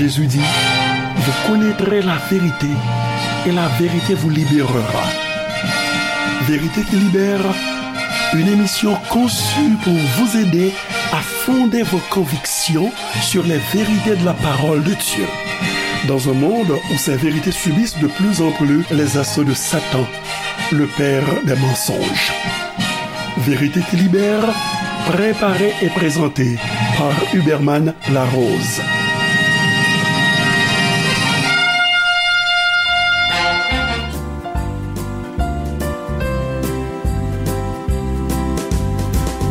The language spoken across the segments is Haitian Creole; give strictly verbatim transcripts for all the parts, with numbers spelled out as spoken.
Jésus dit, vous connaîtrez la vérité et la vérité vous libérera. Vérité qui libère, une émission conçue pour vous aider à fonder vos convictions sur les vérités de la parole de Dieu. Dans un monde où ces vérités subissent de plus en plus les assauts de Satan, le père des mensonges. Vérité qui libère, préparée et présentée par Huberman Larose.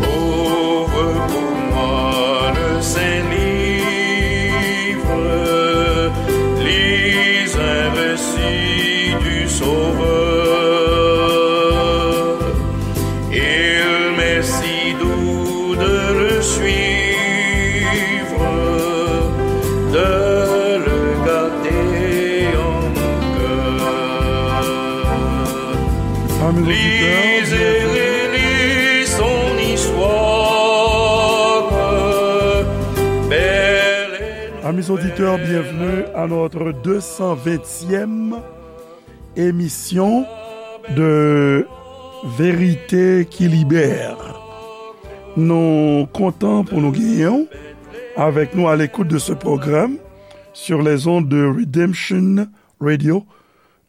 Ouvre pour moi le Saint-Livre, lis un récit du Sauveur. Il m'est si doux de le suivre, de le garder en mon cœur. Amis auditeurs, lisez et relisez son histoire. Belle et Amis auditeurs, bienvenue à notre deux cent vingtième émission de Vérité qui Libère. Nou kontan pou nou genyen w avec nous à l'écoute de ce programme sur les ondes de Redemption Radio,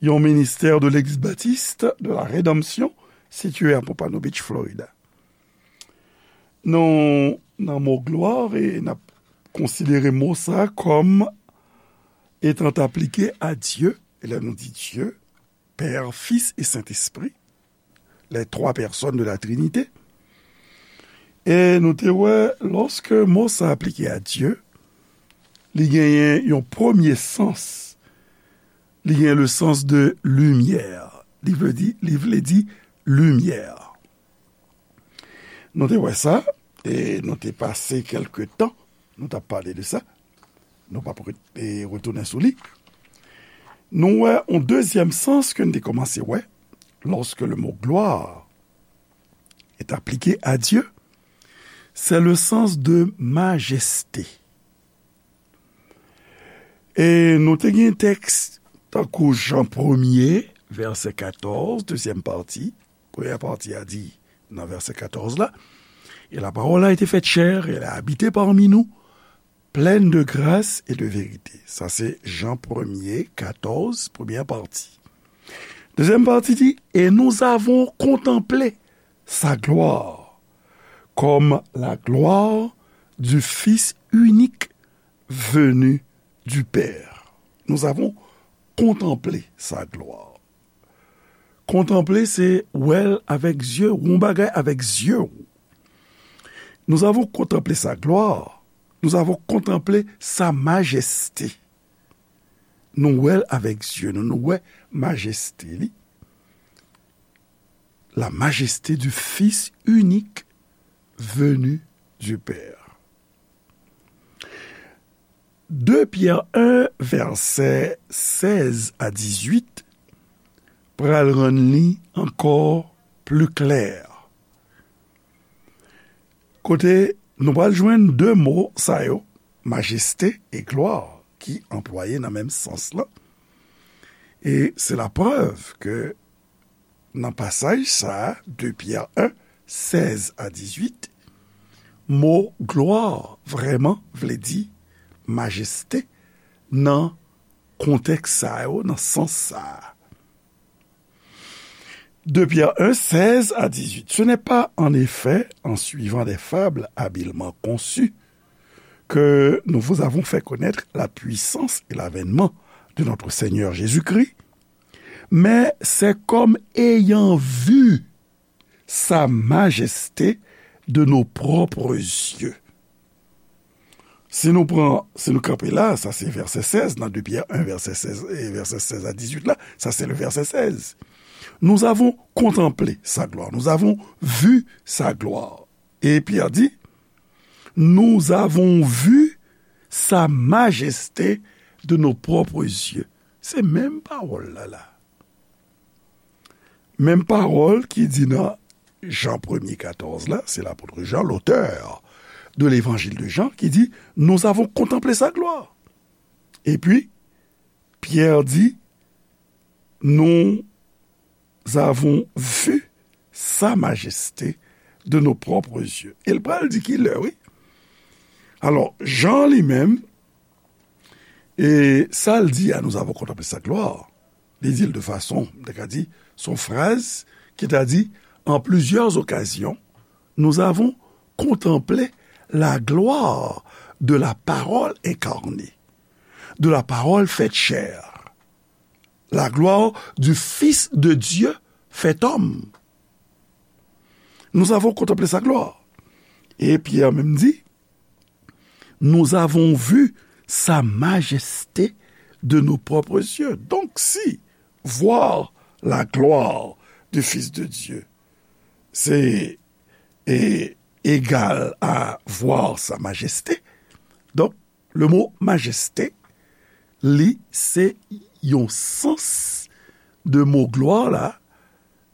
yon ministè de Legliz Batis de la Redanmsyon sitiye a Pompano Beach, Florida. Nou nan mo glwa e n ap konsidere mo sa kòm etan aplike a Dye. E lè nou di Dye, Pè, Fis e Sentespri, les trois personnes de la Trinité. E nou te wè, lòske mo sa aplike a Dye, li genyen yon premye sans. Li genyen le sens de lumière. Li vle di, li vle di limyè. Nou te wè sa, e nou te pase kèlke tan, nou t ap pale de sa. Nou p ap re-, e, retounen sou li. Nou wè yon dezyèm sans ke n te kòmanse wè, lorsque le mot gloire est appliqué à Dieu, c'est le sens de majesté. E nou te gen tèks tankou Jan premye, vèsè katòz, dezyèm pati. Premyè pati a di nan vèsè katòz la, et la parole a été faite chair, elle a habité parmi nous, pleine de grâce et de vérité. Sa se Jan premye, katòz, premyè pati. Dezyèm pati di, et nous avons contemplé sa gloire, comme la gloire du Fils unique venu du Père. Nous avons contemplé sa gloire. Kontanple, se wè l avèk zye w, yon bagay avèk zye w. Nous avons contemplé sa gloire. Nous avons contemplé sa majesté. Nou wè l avèk zye nou, nou wè majeste li. La majesté du Fils unique venu du Père. De Pyè en, vèsè sèz a dizuit, pral rann li ankò pli klè. Kote nou pral jwenn de mo sa yo, majeste e glwa, ki anplwaye nan menm sans lan. E se laprèv ke nan pasaj sa a, de Pyè en, sèz a dizuit, mo glwa vrèman vle di majeste nan kontèks sa yo, nan sans sa a. De Pyè en, sèz a dizuit. Ce n'est pas, en effet, en suivant des fables habilement conçues que nous vous avons fait connaître la puissance et l'avènement de notre Seigneur Jésus-Christ, mais c'est comme ayant vu sa majesté de nos propres yeux. Si nou pran, si nou kanpe la, sa se vèsè sèz, nan de Pyè en, vèsè sèz, e vèsè sèz a dizuit la, sa se le vèsè sèz. Nous avons contemplé sa gloire, nous avons vu sa gloire. E Pyè di, nous avons vu sa majesté de nos propres yeux. Se menm pawòl la la. Menm pawòl ki di nan Jan premye katòz la, se lapot Jan, l'auteur de l'évangile de Jean, ki di, nous avons contemplé sa gloire. Et puis, Pierre dit, nous avons vu sa majesté de nos propres yeux. E l pral di ki lè, wi. Alò, Jan li menm, e sa l di a, nous avons contemplé sa gloire. Li di l de fason, m te ka di, s on fraz ki ta di, en plusieurs occasions, nous avons contemplé la gloire de la parole incarnée, de la parole faite chair, la gloire du Fils de Dieu fait homme. Nous avons contemplé sa gloire. Et Pierre même dit, nous avons vu sa majesté de nos propres yeux. Donc, si voir la gloire du Fils de Dieu, c'est é- égal à voir sa majesté, donc, le mot majesté, li se yon sans de mo glwa la,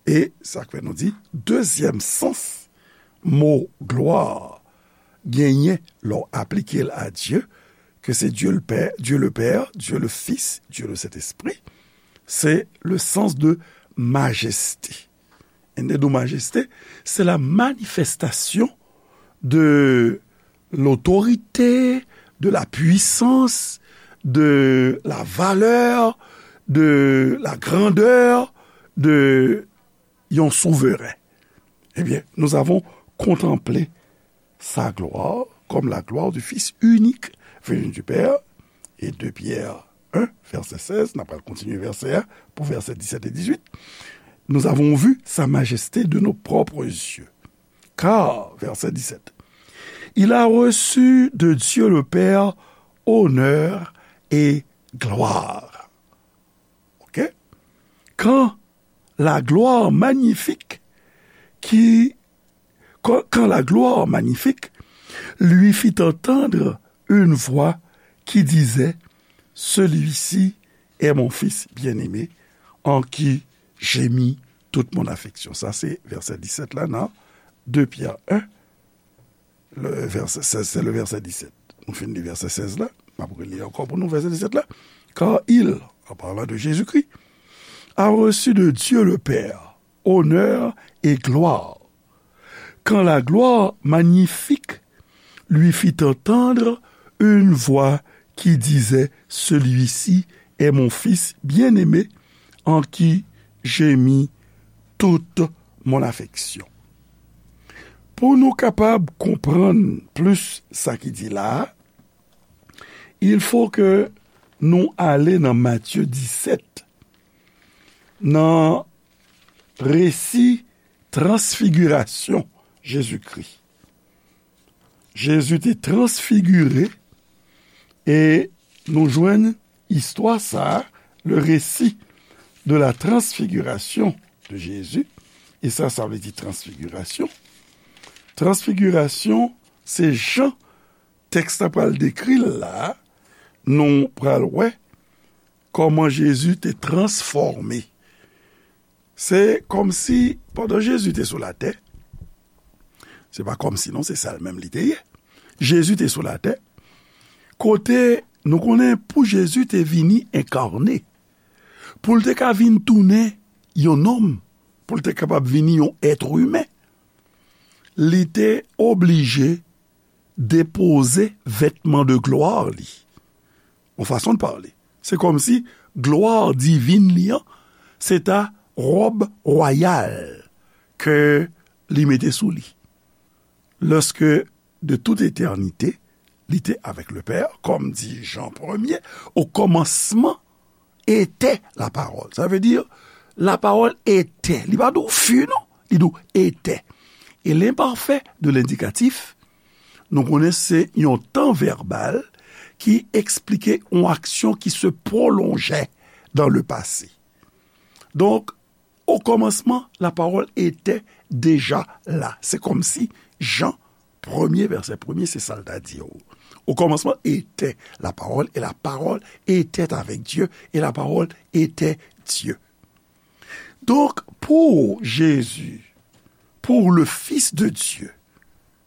e sa k fè nou di, dezyèm sans mo glwa genyen lè w aplike l a Dye, ke se Dye le Pè, Dye le Pè, Dye le Fis, Dye le Sentespri, se le sans de majesté. Endedo majeste, se la manifestasyon de lotorite, de la pwisans, de la valè, de la grandè de yon souveren. Ebyen, nous avons contemplé sa gloire comme la gloire du Fils unique venu du Père. Et deux Pierre un, verset seize, n ap pral kontinye vèsè a pou vèsè disèt e dizuit. Nous avons vu sa majesté de nos propres yeux. Car, verset dix-sept, il a reçu de Dieu le Père honneur et gloire. Ok? Quand la gloire magnifique qui, quand, quand la gloire magnifique lui fit entendre une voix qui disait, celui-ci est mon Fils bien-aimé, en qui j'ai mis toute mon affection. Sa se vèsè disèt la nan de Pyè en, le verset seize, c'est le verset dix-sept. Nou fin li vèsè sèz la, m ap reli ankò pou nou vèsè disèt la. Car il, en parlant de Jésus-Christ, a reçu de Dieu le Père honneur et gloire. Quand la gloire magnifique lui fit entendre une voix qui disait, celui-ci est mon Fils bien-aimé, en qui j'ai mis toute mon affection. Pou nou kapab konprann plis sa ki di la a, il faut que nou ale nan Matye disèt, nan resi transfigirasyon Jezikri. Jezi te transfigire e nou jwenn istwa sa a, le récit de la transfiguration de Jésus. E sa, sa vle di transfigirasyon. Transfigirasyon, se jan tèks la pral dekri l la, nou pral wè kòman Jezi te transfòme. Se kòmsi, pandan Jezi te sou latè, se pa kòmsi non, se sa l menm li te ye. Jezi te sou latè, kote nou konnen pou Jezi te vini enkane, pou l te ka vin tounen yon nonm, pou l te kapab vini yon èt imen, li te oblije depoze vètman de glwa li. Yon fason de pale. Se kòmsi glwa divin li an, se ta wòb wayal ke li mete sou li. Lorsque de toute éternité, li te avec le Père, comme dit Jean premier, au commencement était la parole. Ça veut dire, la parole était. Li pa di w fut, non. Li di w était. E l'imparfait de l'indicatif, nou konnen se yon tan vèbal ki eksplike yon aksyon ki se pwolonje dans le passé. Donc, au commencement, la parole était déjà là. Se kòmsi Jan premye, vèsè premye, se sa l ta di yo. Au commencement était la parole, et la parole était avec Dieu, et la parole était Dieu. Donc, pour Jésus, pour le Fils de Dieu,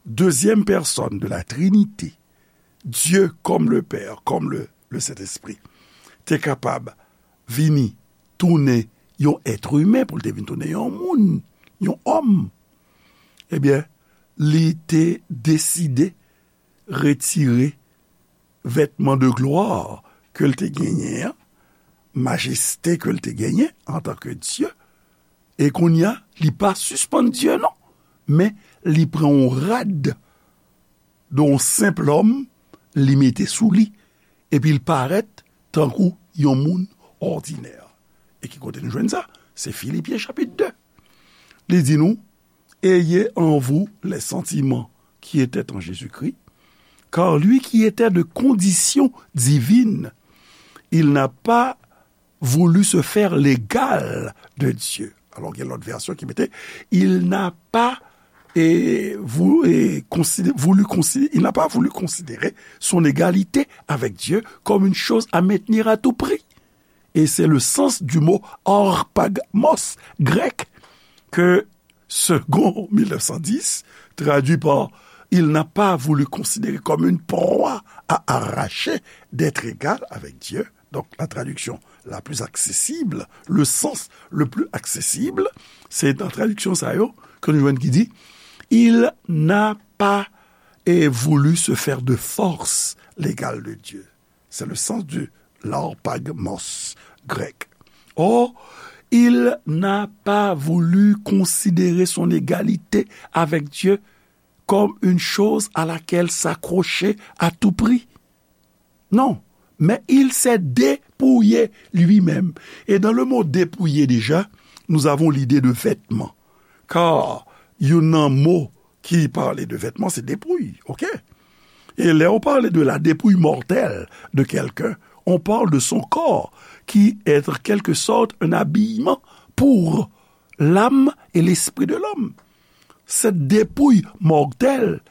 deuxième personne de la Trinité, Dieu comme le Père, comme le Lesentespri te kapab vini tounen yon èt imen, pou l te vin tounen yon moun, yon òm, ebyen, li te deside retire vètman de glwa ke l te genyen an, majeste ke l te genyen antanke Dye, e kounye a, li pa sispann Dye non, men li pran yon rad de yon senp lòm, li mete sou li, epi l parèt tankou yon moun òdinè. E ki kote nou jwenn sa? Se Filipyen chapit de. Li di nou, Ayez en vous les sentiments qui étaient en Jésus-Christ, car lui qui était de condition divine, il n'a pas voulu se faire l'égal de Dieu. Alors, il y a l'autre version qui mettait, il n'a pas et vou- et considé- voulu considérer, il n'a pas voulu considérer son égalité avec Dieu comme une chose à maintenir à tout prix. Et c'est le sens du mot harpagmos grec que Segond mil nèf san dis, traduit par il n'a pas voulu considérer comme une proie à arracher d'être égal avec Dieu. Donc, la traduction la plus accessible, le sens le plus accessible, c'est dans traduction sa yo, que nous jwenn qui dit, il n'a pas et voulu se faire de force l'égal de Dieu. C'est le sens du larpagmos grec. Or, il n'a pas voulu considérer son égalité avec Dieu comme une chose à laquelle s'accrocher à tout prix. Non, mais il s'est dépouillé lui-même. Et dans le mot dépouillé déjà, nous avons l'idée de vêtement. Car il y a un mot qui parlait de vêtements, c'est dépouille, ok? Et là, on parle de la dépouille mortelle de quelqu'un. On parle de son corps qui est en quelque sorte un habillement pour l'âme et l'esprit de l'homme. Cette dépouille mortelle,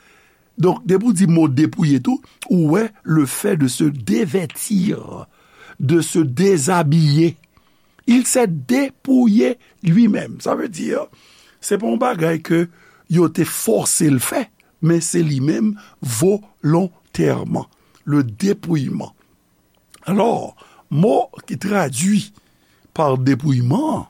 donc, depi w di mo depouye tou, ou wè le fait de se dévêtir, de se déshabiller. Il s'est dépouillé lui-même. Sa vle di, se pa yon bagay ke yo te fòse l fè, men se li menm volontèman. Le dépouillement. Alò, mo ki tradui pa depouyman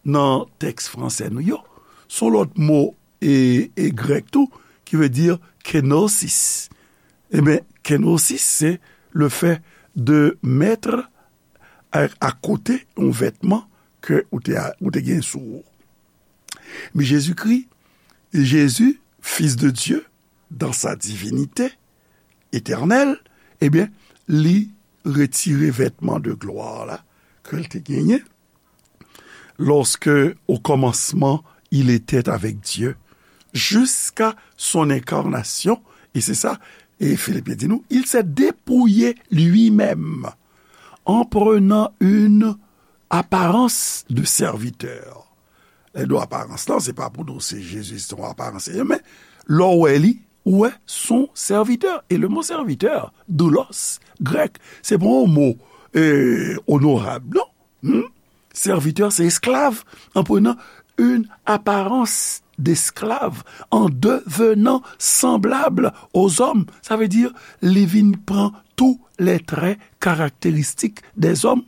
nan tèks franse nou yo, se yon lòt mo e, e grèk tou, ki vle di kenosis. Ebyen, kenosis, se le fait de mettre à, à côté yon vètman ke ou te, ou te gen sou ou. Men Jezikri, Jésus, Fils de Dieu, dans sa divinité éternelle, ebyen, li retire vètman de glwa la ke l te genyen. Lorsque, au commencement, il était avec Dieu, jusqu'à son incarnation, et c'est ça, et Philippiens di nou, il s'est dépouillé lui-même en prenant une apparence de serviteur. Lè nou aparans lan, se pa pou nou se Jezi, se yon aparans, men lè w wè li, ou wè son serviteur. Et le mot serviteur, doulos, grèk, se pa yon mo, euh, onorab, non. Hmm? Serviteur, c'est esclave, en prenant une apparence d'esclave, en devenant semblable aux hommes. Sa vle di, li vin pran tous les traits caractéristiques des hommes.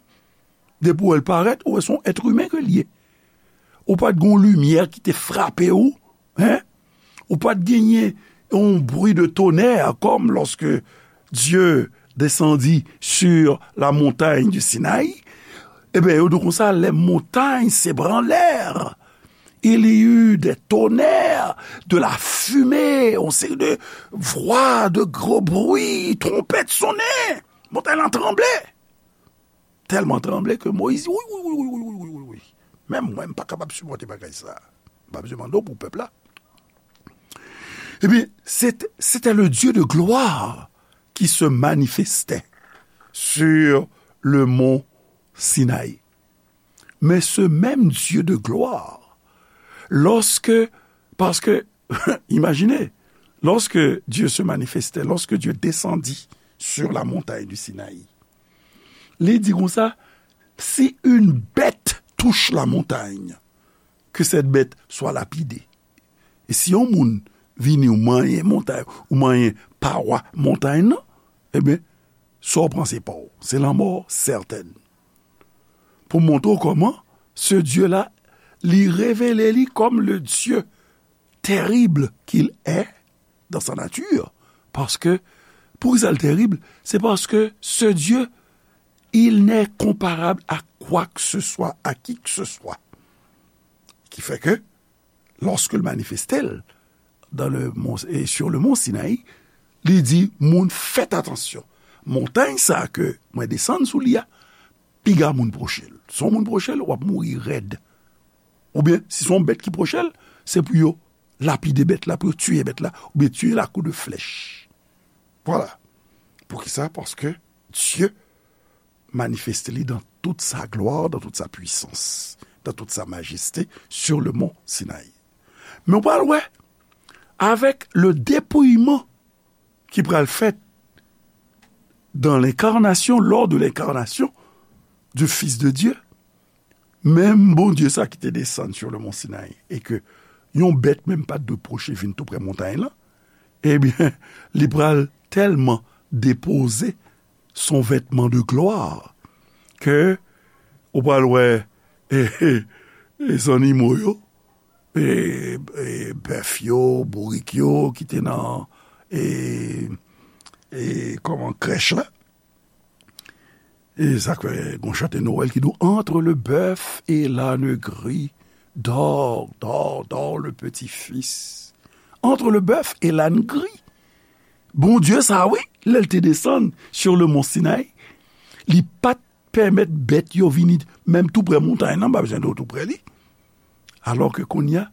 Depi w wè l parèt, ou wè se yon èt imen ke l ye. Ou pa t gen yon limyè ki te frape w, hein? Ou pa t genyen yon bri de tonnerre comme lorsque Dieu descendit sur la montagne du Sinaï. Ebyen, yo di konsa, les montagnes s'ébranlèrent. Il y eut des tonnerres, de la fumée, yon seri de vwa, de gwo bri, twonpèt sonnen. Montay lan tranble. Tèlman tranble ke Moyiz di, wi, wi, wi. Menm mwen, m pa kapab sipòte bagay sa. M pa bezwen mande w pou pèp la. Ebyen, c'était, c'était le Dieu de gloire qui se manifestait sur le mont Sinaï. Mais ce même Dieu de gloire, lorsque, parce que, imaginez, lorsque Dieu se manifestait, lorsque Dieu descendit sur la montagne du Sinaï, li di konsa, si une bête touche la montagne, que cette bête soit lapidée. E si yon moun vini ou manyen montay, ou manyen pawa montay nan, ebyen, Sa w panse pa w. Se lanmò sètèn. Pou montre w kòman, ce Dieu-là, li revele li comme le Dieu terrible qu'il est dans sa nature. Paske, poukisa l terib? Se paske ce Dieu, il n'est comparable à quoi que ce soit, à qui que ce soit. Ki fè ke, lorsque l manifeste l dans le mont, et sur le mont Sinaï, li di moun fèt atansyon. Montay sa ke mwen desann sou li a, piga moun pwoche l. Si yon moun pwoche l, w ap mouri rèd. Oubyen, si se yon bèt ki pwoche l, se pou yo lapide bèt la, pou yo tiye bèt la, oubyen tiye l a kou de flèch. Vwala. Poukisa? Paske Dye manifeste li dans toute sa gloire, dans toute sa puissance, dans toute sa majesté, sur le mont Sinaï. Men w pral wè, avec le dépouillement ki pral fèt dans l'incarnation, lors de l'incarnation du Fils de Dieu, menm Bondye sa ki te desann sur le mont Sinaï, e ke yon bèt menm pa t dwe pwoche vin tou prè montay lan, ebyen, li pral tèlman depoze son vêtement de gloire ke ou pral wè, e, e, e zannimo yo, e, e bèf yo, bourik yo ki te nan, e, e, kòman, krèch la. E sa k fè gon chante Nwèl ki di w, entre le bœuf et l'âne gris, dors, dors, dors, le petit fils. Entre le bœuf et l'âne gris. Bondye sa, wi, lè l te desann sur le mont Sinaï, li pa t pèmèt bèt yo vini menm tou prè montay lan, pa bezwen di w tou prè li. Alors que kounye a,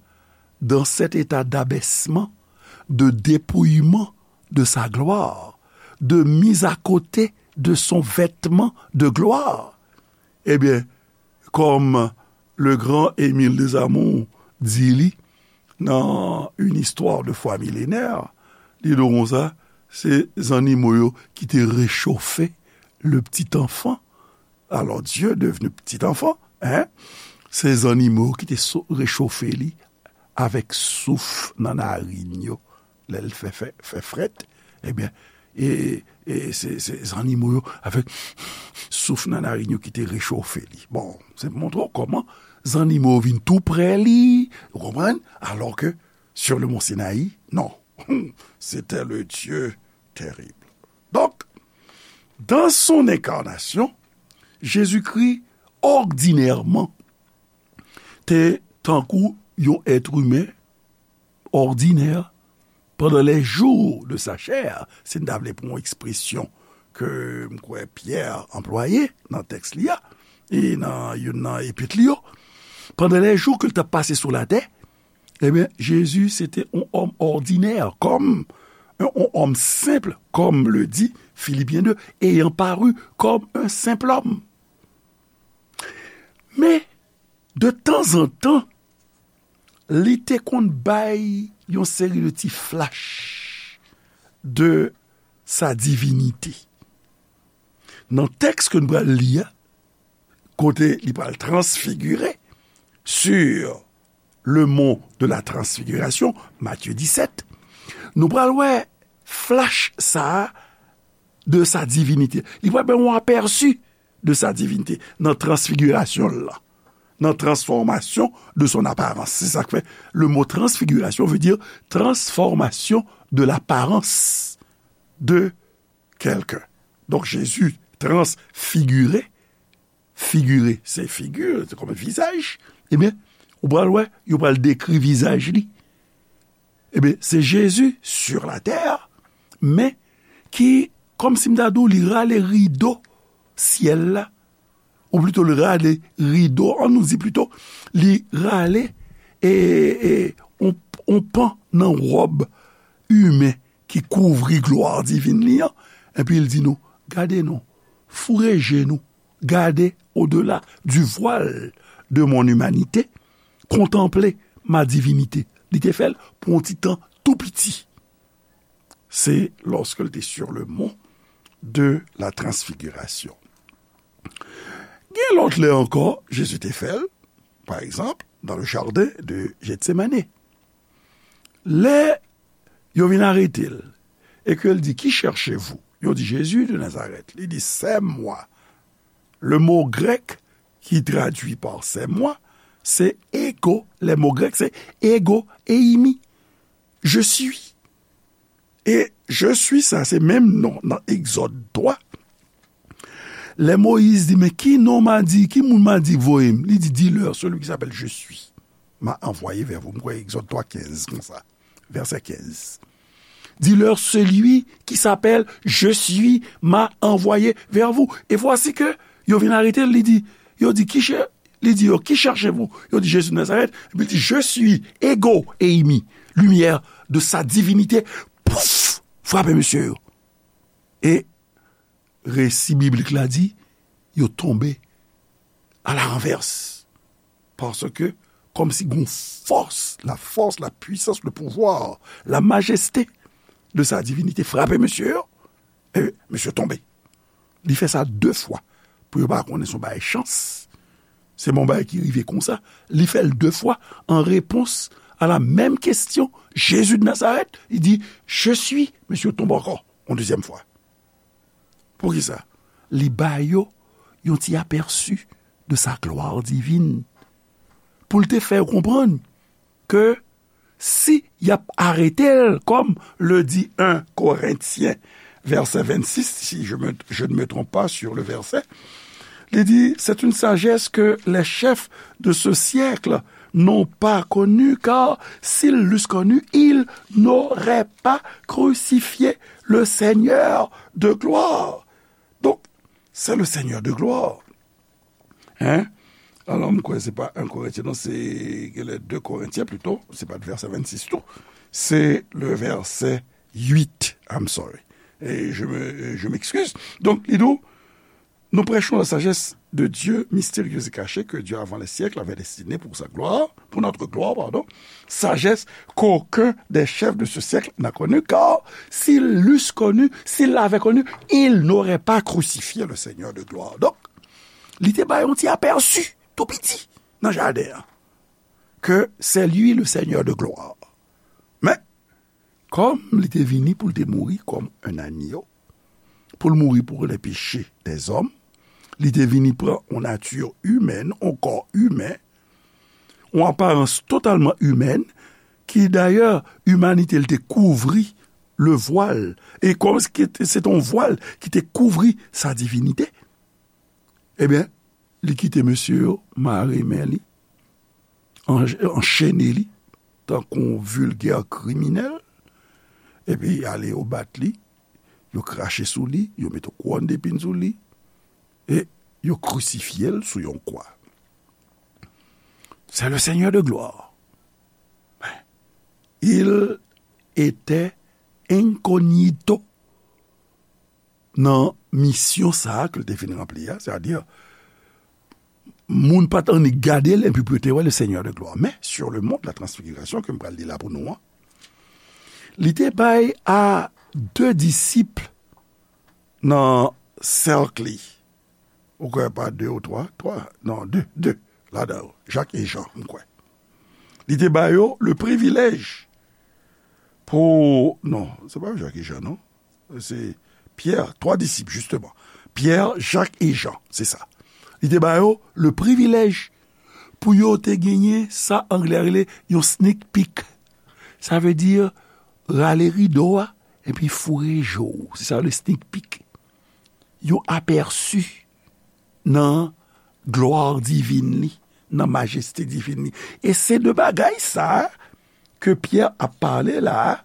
dans cet état d'abaissement, de dépouillement de sa gloire, de mise à côté de son vêtement de gloire, ebyen, kòm le grand Émile Desamours di li nan Une histoire de foi millénaire, li di w konsa, se zannimo yo ki te rechofe le petit enfant. Alors Dieu devenu petit enfant, hein, se zannimo yo ki te so-, rechofe li avèk souf nan narin yo. Lè l fè, fè, fè frèt, ebyen, e, e se, se zannimo yo, avèk souf nan narin yo ki te rechofe li. Bon, se pou montre w kòman zannimo yo vin tou prè li, ou konprann? Alors que sur le mont Sinaï, non. C'était le Dieu terrible. Donc, dans son incarnation, Jésus-Christ, ordinairement, te tankou yon èt imen òdinè, pendant les jours de sa chair, si n ta vle pran yon ekspresyon ke m kwè Pyè anplwaye nan tèks li a, e nan youn nan epit li yo, pendant les jours ke l t ap pase sou latè, ebyen, Jezi se te yon òm òdinè, comme un, un homme simple, comme le dit Philippiens deux, ayant paru comme un simple homme. Men, de temps en temps, li te konn bay yon seri de ti flash de sa divinité. Nan tèks ke n pral li a, kote li pral transfigire, sur le mont de la transfiguration, Matthieu dix-sept, nou pral wè flash sa a de sa divinité. Li pral bay yon apèsi de sa divinité nan transfigirasyon l lan, nan transformation de son apparence. Se sa k fè le mot transfiguration veut dire transformation de l'apparence de quelqu'un. Donk, Jezi transfigire, figire, se figi, se kòm vizaj, ebyen, ou pral wè, yo pral dekri vizaj li. Ebyen, se Jezi sur la terre, men ki, kòmsi m ta di w, li rale rido syèl la, ou plito li rale rido, an nou di plito, li rale, e, e, on, on pan nan wòb imen ki kouvri glwa divin li an, epi l di nou, gade non, foure je nou, gade au-delà du voile de mon humanité, contemplez ma divinité. Li te fè l pou yon ti tan tou piti. Se lorsque l te sur le mont de la transfiguration. Gen lòt lè ankò, Jezi te fè l, pa egzanp, dans le jardin de Gethsemane. Lè yo vin arete l, e ke l di, qui cherchez-vous? Yo di, Jésus de Nazareth. Li di, c'est moi. Le mot grec qui traduit par c'est moi, c'est ego. Le mot grec, c'est ego eimi. Je suis. E je suis sa, se menm non nan Egzòd twa. Lè Moyiz di, men ki non m a di, ki moun m a di voye m? Li di, dis-leur, celui qui s'appelle Je suis m'a envoyé vers vous. M kwè Egzòd twa kenz konsa, vèsè kenz. Dis-leur, celui qui s'appelle Je suis m'a envoyé vers vous. Et voici que yo vin arete l, li di, yo di, ki chè-, li di yo, qui cherchez-vous? Yo di, Jésus de Nazareth. Epi li di, Je suis, ego eimi, lumière de sa divinité. Pouf! Frape mesye yo. E resi biblik la di, yo tonbe à la renverse. Paske, kòmsi gon fòs, la force, la puissance, le pouvoir, la majesté de sa divinité frape mesye yo. E mesye tonbe. Li fè sa de fwa. Pou yo pa konnen se yon bagay chans. Se yon bagay ki rive konsa. Li fè l de fwa en réponse à la même question. Jésus de Nazareth, li di, Je suis. Mesye tonbe ankò, yon dezyèm fwa. Poukisa? Li ba yo yon ti apèsi de sa gloire divine. Pou l te fè yo konprann ke si y ap arete l, comme le dit un Corinthiens, verset vingt-six, si je me, je ne me trompe pas sur le verset, li di, c'est une sagesse que les chefs de ce siècle n'ont pas connue, car s'ils l'eussent connue, ils n'auraient pas crucifié le Seigneur de gloire. Donc, c'est le Seigneur de gloire. Hein? Alò, m kwè se pa un Corinthiens, non, se genlè deux Corinthiens plutôt. Se pa vèsè vennsis tou. Se le verset huit. I'm sorry. Et je me, je m'excuse. Donc, li di, nous prêchons la sagesse de Dieu, mystérieuse et cachée, que Dieu avant les siècles avait destinée pour sa gloire, pour notre gloire, pardon. Sagesse qu'aucun des chefs de ce siècle n'a connue, car s'ils l'eussent connue, s'ils l'avaient connue, ils n'auraient pas crucifié le Seigneur de gloire. Donc, li te bay yon ti apèsi, tou piti, nan jaden an, ke c'est lui le Seigneur de gloire. Men, kòm li te vini pou l te mouri comme un agneau, pou l mouri pour les péchés des hommes, li te vini pran yon nati imèn, yon kò imen, yon aparans totalman imèn, ki dayè, imanite l te kouvri le vwal, e kòm se te yon vwal ki te kouvri sa divinite, ebyen, li kite mesye yo mare men li, an-, anchene li, tankou yon vilgè kriminèl, epi ale yo bat li, yo krache sou li, yo mete yon kouwòn depin sou li, e yo krisifye l sou yon kwa. C'est le Seigneur de gloire. Il était incognito nan misyon sa a ke l te vin ranpli a, sètadi, moun pa t annik gade l, epi pou yo te wè le Seigneur de gloire. Men, sur le mont de la transfiguration, ke m pral li la pou nou an, li te bay a de disip nan sèk li. Ou kwè pa de ou twa? Twa? Non, de, de. Ladan yo, Jak e Jan, m kwè. Li te ba yo le privilèj pou, non, se pa Jak e Jan, non. Se Pyè, twa disip, jisteman. Pyè, Jak e Jan, se sa. Li te ba yo le privilèj pou yo te genyen sa anglè rele yon sneak peek. Sa vle di rale rido a, epi foure je w. Se sa le sneak peek. Yon apèsi nan glwa divin li, nan majeste divin li. E se de bagay sa a ke Pyè ap pale la a,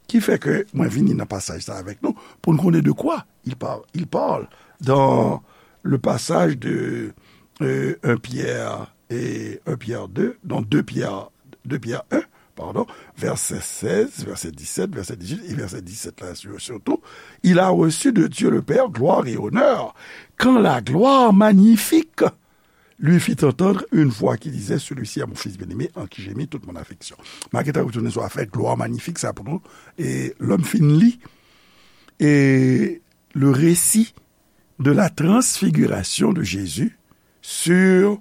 ki fè ke mwen vini nan pasaj sa avèk nou, pou n konnen de kwa il parle. Il parle dans le passage de, euh, un Pierre et un Pierre deux, non, deux Pierre, deux Pierre un, pardon, verset seize, verset dix-sept, verset dix-huit et verset dix-sept là, sur-, surtout, il a reçu de Dieu le Père gloire et honneur, quand la gloire magnifique lui fit entendre une voix qui disait, celui-ci est mon fils bien-aimé, en qui j'ai mis toute mon affection. M a gentan retounen sou afè glwa manifik sa pou nou, e lè m fin li, e le récit de la transfiguration de Jésus sur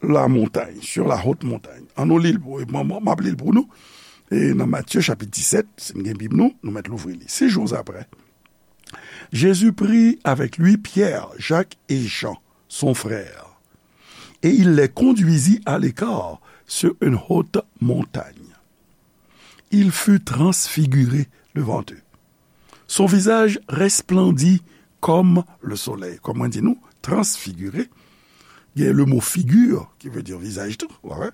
la montagne, sur la haute montagne. An nou li l pou, m, m, m ap li l pou nou. E nan Matye chapit disèt, si n gen Bib nou, nou mèt louvri li. Sis jou apre, Jésus prit avec lui Pierre, Jacques et Jean, son frère, et il les conduisit à l'écart sur une haute montagne. Il fut transfiguré devant eux. Son visage resplendit comme le soleil. Kòm mwen di nou, transfiguré, gen le mo figure, ki vle di vizaj tou, w wè.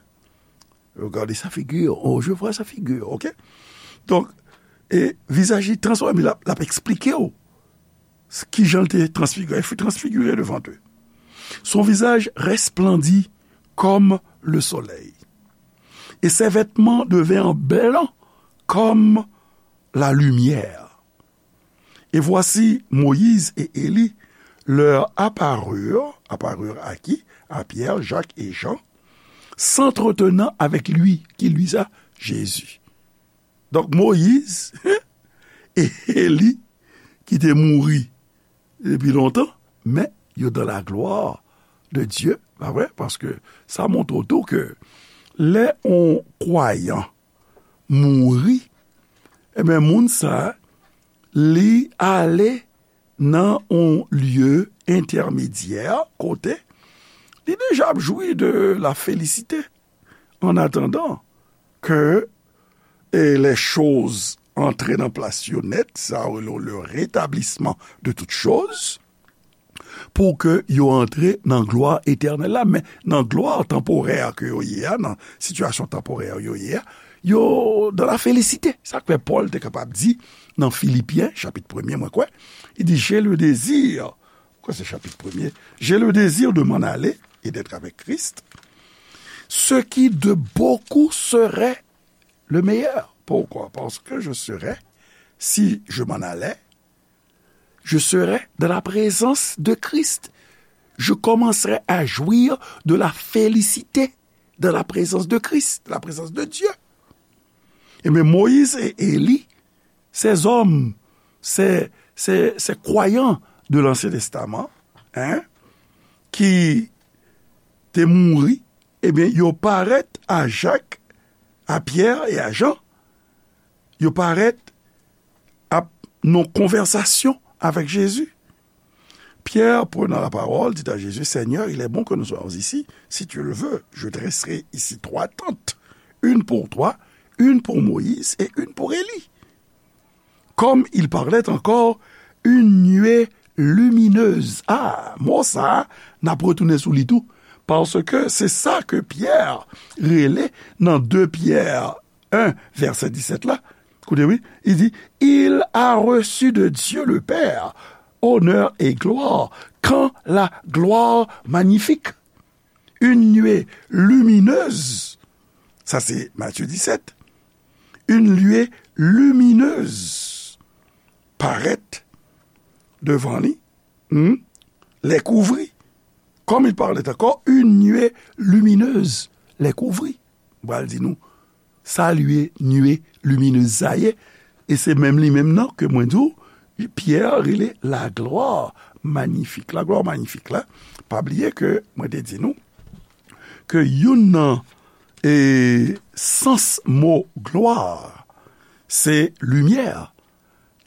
Regardez sa figure, oh, je vois sa figure, ok? Donk, e vizaj li transfòme, l ap, l ap eksplike w s-, kijan l te transfigire. Il fut transfiguré devant eux. Son visage resplendit comme le soleil, et ses vêtements devinrent blancs comme la lumière. Et voici Moïse et Élie leur apparurent, apparurent à qui? À Pierre, Jacques et Jean, s'entretenant avec lui, qui lui ça? Jésus. Donk Moyiz e Eli ki te mouri depi lontan, men yo dans la gloire de Dieu, pa vre? Paske sa montre w tou ke lè yon kwayan mouri, ebyen, moun sa, li ale nan yon lye entèmedyè kote li deja ap jwi de la félicité. En attendant que, eh, les choses antre nan plas yo nèt, sa yo rele le rétablissement de toutes choses, pou ke yo antre nan glwa etènèl la. Men nan glwa tanporè ke yo ye a, nan sitiyasyon tanporè yo ye a, yo dans la félicité. Sa k fè Pòl te kapab di nan Filipyen, chapit premye, mwen kwè, li di, j'ai le désir, kwè se chapit premye, j'ai le désir de m'en aller et d'être avec Christ, ce qui de beaucoup serait le meilleur. Pourquoi? Parce que je serai, si je m'en allais, je serai dans la présence de Christ. Je commencerai à jouir de la félicité dans la présence de Christ, dans la présence de Dieu. Et bien, Moïse et Élie, ces hommes, ces, ces, ces croyants de l'Ancien Testament, hein, ki te mouri, ebyen, yo parèt a Jak, a Pyè e a Jan. Yo parèt ap nan konvèsasyon avèk Jezi. Pierre, prenant la parole, dit à Jésus, Seigneur, il est bon que nous soyons ici. Si tu le veux, je dresserai ici trois tentes, une pour toi, une pour Moïse et une pour Élie. Comme il parlait encore, une nuée lumineuse. Ah, mo sa a, n ap retounen sou li tou. Paske se sa ke Pyè rele nan de Pyè en, vèsè disèt la. Koute, wi, li di, il a reçu de Dieu le Père honneur et gloire, quand la gloire magnifique, une nuée lumineuse, sa se Matye disèt, une nuée lumineuse parèt devan li, hmm, les couvrit. Comme il parlait encore, une nuée lumineuse les couvrit. M pral di nou, sa lye nuée lumineuse sa ye, e se menm li menm nan ke mwen di w, Pyè rele la gloire magnifique. La gloire magnifique la, pa bliye ke mwen te di nou ke youn nan, e, sans mo gloire, se limyè.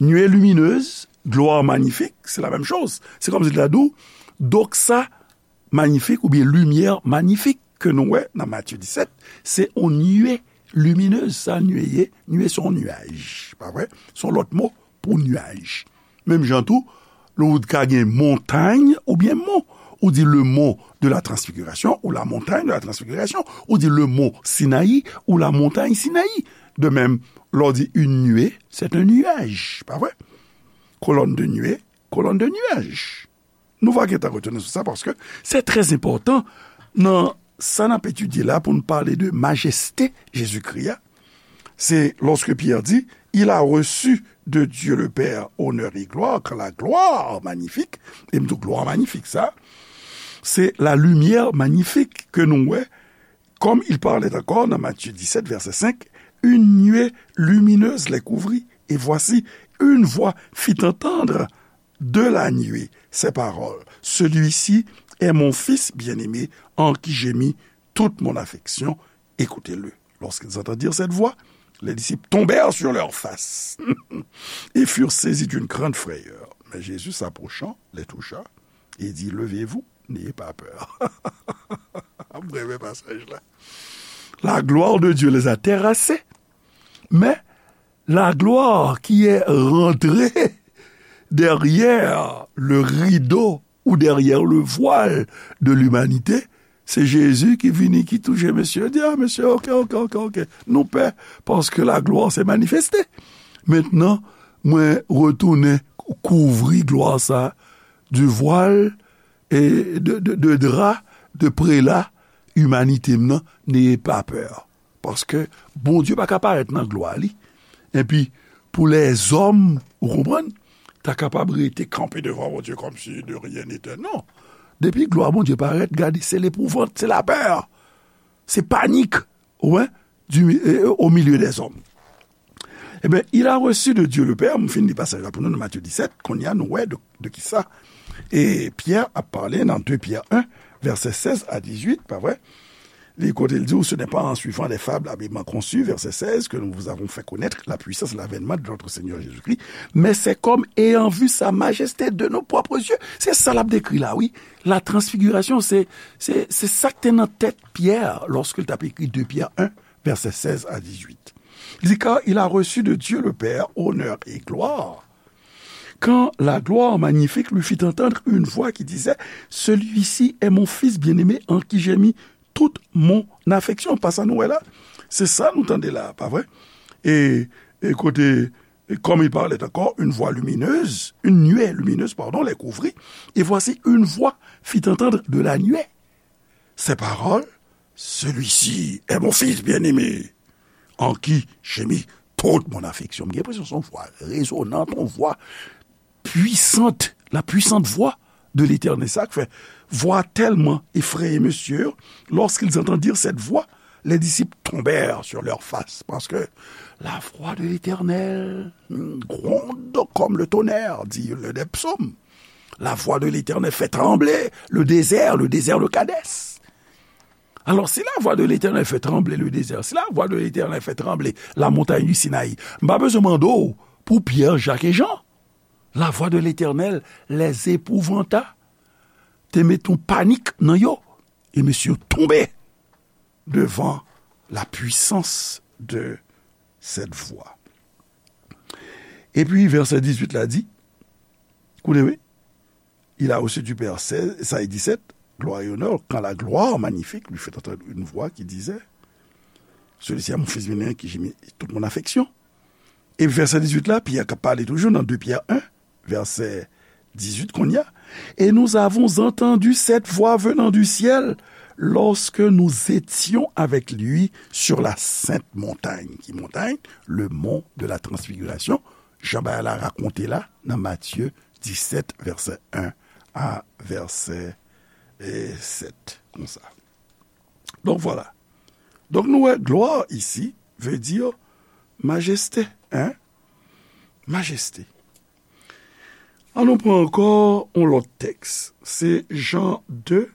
Nuée lumineuse, gloire magnifique, se la menm choz. Se kòmsi l ta di w, doxa magnifique oubyen limyè magnifique ke nou wè nan Matye disèt, se yon nuée lumineuse, sa nuée ye, nuée se yon nuaj, pa vre? Se yon lòt mo pou nuaj. Menm jan tou, lè w ka gen montay oubyen mon, ou di le mont de la transfiguration ou la montagne de la transfiguration, ou di le mont Sinaï ou la montagne Sinaï. De même, lè w di une nuée, c'est un nuage, pa vre? Colonne de nuée, colonne de nuage. Nou va gentan retounen sou sa, paske se trè enpòtan nan sa n ap etidye la pou n pale de majeste Jezikri a. Se lòske Pyè di, il a reçu de Dieu le Père honneur et gloire, quand la gloire magnifique, e m di w glwa manyifik sa, se la limyè manyifik ke nou wè, comme il parlait encore dans Matthieu dix-sept, verset cinq, une nuée lumineuse les couvrit, et voici, une voix fit entendre de la nuée ces paroles, celui-ci est mon fils bien-aimé, en qui j'ai mis toute mon affection, écoutez-le. Lorsqu'ils entendirent cette voix, les disciples tombèrent sur leurs faces et furent saisis d'une grande frayeur. Jésus s'approchant, les toucha, et dit, levez-vous, n'ayez pas peur. M renmen pasaj la. La gloire de Dieu les a terrassés, mais la gloire qui est rentrée derrière le rideau ou derrière le voile de l'humanité, se Jezi ki vini, ki touche mesye, di, ah, mesye, ok, ok, ok, ok. Nou pè, paske la glwa se manifeste. Mentnan, mwen retounen kouvri glwa sa, du voile, e de, de, de dra, de prela, imanite m nan, n'ayez pas peur. Paske Bondye pa ka parèt nan glwa li. Epi, pou lèzòm, ou konprann, ta kapab rete kanpe devan Bondye kòmsi de rien n'était. Non. Depi glwa Bondye parèt, gade, se lepouvant, se lapè, se panik, ou wè, du, euh, au milieu des hommes. Eh bien, il a reçu de Dieu le Père, m fin li pasaj la pou nou nan Matthieu dix-sept, kounye a nou wè de, de ki sa. E Pyè ap pale nan deux Pierre un, vèsè sèz a dizuit, pa vre? Li kote l di, ce n'est pas en suivant les fables habilement conçues, verset seize, que nous vous avons fait connaître la puissance de l'avènement de notre Seigneur Jésus-Christ, mais c'est comme ayant vu sa majesté de nos propres yeux. Se sa l ap dekri la, wi. La transfiguration, se, se, se sa k te nan tèt Pyè, lòske l t ap ekri deux Pierre un, verset seize à dix-huit. Li di, car il a reçu de Dieu le Père honneur et gloire. Quand la gloire magnifique lui fit entendre une voix qui disait, celui-ci est mon fils bien-aimé en qui j'ai mis toute mon affection. Pa sa nou wè la? Se sa nou tande la, pa vre? E, e kote, et comme il parlait encore, une voix lumineuse, une nuée lumineuse, pardon, les couvrit. Et voici, une voix fit entendre de la nuée ces paroles, celui-ci est mon fils bien-aimé, en qui j'ai mis toute mon affection. M gen enpresyon se yon vwa rezonant, yon vwa pwisant, la puissante voix de l'Éternel. Sa k fè, voix tellement effrayée, mesye, lorsqu'ils entendirent cette voix, les disciples tombèrent sur leur face, parce que la voix de l'Éternel gronde comme le tonnerre, dit l'un des psaumes. La voix de l'Éternel fait trembler le désert, le désert de Kadès. Alors, si la voix de l'Éternel fait trembler le désert, si la voix de l'Éternel fait trembler la montagne du Sinaï, m pa bezwen mande w pou Pyè, Jak e Jan. La voix de l'Éternel les épouvanta, te met yon panik nan yo, e mesye yo tonbe devant la puissance de cette voix. Epi, vèsè dizuit la di, koute, wi, il a reçu du Père seize, ça est dix-sept, gloire et honneur, quand la gloire magnifique lui fait entendre une voix qui disait, celui-ci est mon fils bien-aimé, en qui j'ai mis toute mon affection. E vèsè dizuit la, Pyè k ap pale toujou nan deux Pierre un, vèsè dizuit kounye a, et nous avons entendu cette voix venant du ciel lorsque nous étions avec lui sur la sainte montagne. Ki montay? Le mont de la transfiguration. Jan bagay la rakonte la nan Matye disèt, vèsè en a vèsè, eh, sèt, konsa. Donk, vwala. Donk, nou wè, gloire ici veut dire majesté, hein? Majesté. Ann nou pran ankò yon lòt tèks. Se Jan de,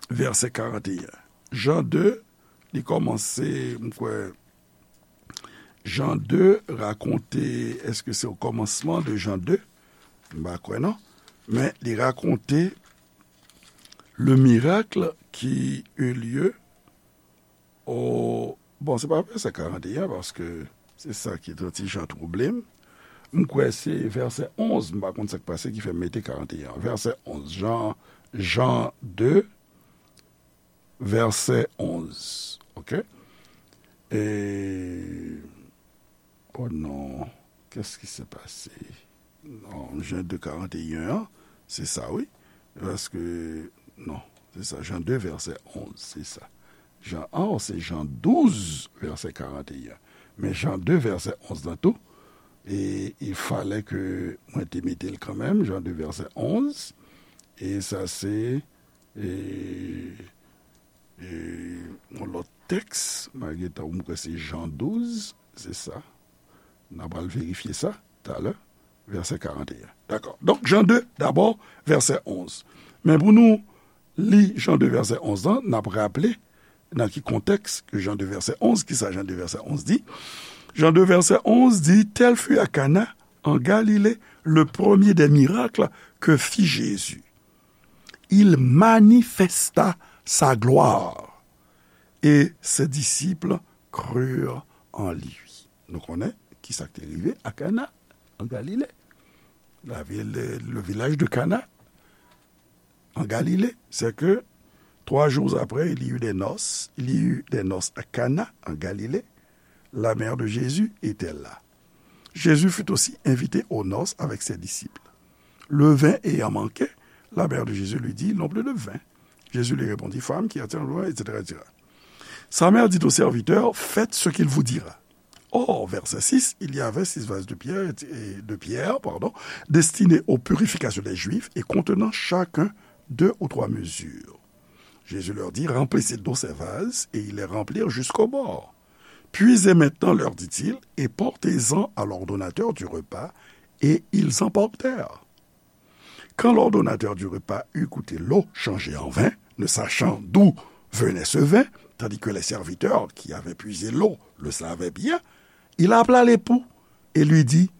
vèsè karant e en. Jan de, li kòmanse, m kwè, Jan de rakonte, èske se o kòmansman de Jan de? M pa kwè non. Men li rakonte le miracle qui eut lieu au, bon, se pa vèsè karant e en, paske se sa ki t yon ti jan twouble m. M kwè se vèsè onz, m pa konn sa k pase ki fè m mete karant e en. Vèsè onz, Jan, Jan de, vèsè onz. Oke? E, oh non, qu'est-ce qui s'est passé? Non, Jan de karant e en an, se sa, wi. Paske, non, se sa, Jan de, vèsè onz, se sa. Jan, oh, se Jan douz, vèsè karant e en. Men Jan de, vèsè onz lan tou, e il fallait que mwen te mete l kanmenm, Jan de, vèsè onz, e sa se, e, e, yon lòt tèks, malgre tan m kwè se Jan douz, se sa. N a pral verifye sa talè, vèsè karant e en. Dakò. Donk, Jan de, dabò, vèsè onz. Men pou nou li Jan de vèsè onz lan, n ap raple nan ki kontèks ke Jan de vèsè onz, ki sa Jan de vèsè onz di? Jan de vèsè onz di, tel fut à Cana, en Galilée, Le premier des miracles que fit Jésus. Il manifesta sa gloire, et ses disciples crurent en lui. Nou konnen ki sa k te rive a Kana, an Galile. La ville, le village de Cana, en Galilée, c'est que trois jours après, il y eut des noces, il y eut des noces à Cana, en Galilée. La mère de Jésus était là. Jésus fut aussi invité aux noces avec ses disciples. Le vin ayant manqué, la mère de Jésus lui dit, ils n'ont plus de vin. Jésus lui répondit, femme, qu'y a-t-il, et cetera, et cetera. Sa mère dit aux serviteurs, faites ce qu'il vous dira. Or, verset six, il y avait six vases de pierre, et de pierre, pardon, destinés aux purifications des Juifs et contenant chacun deux ou trois mesures. Jésus leur dit, remplissez d'eau ces vases, et ils les remplirent jusqu'au bord. Puisez maintenant, leur dit-il, et portez-en à l'ordonnateur du repas, et ils en portèrent. Quand l'ordonnateur du repas eut goûté l'eau changée en vin, ne sachant d'où venait ce vin, tandis que les serviteurs qui avaient puisé l'eau le savaient bien, il appela l'époux et lui dit,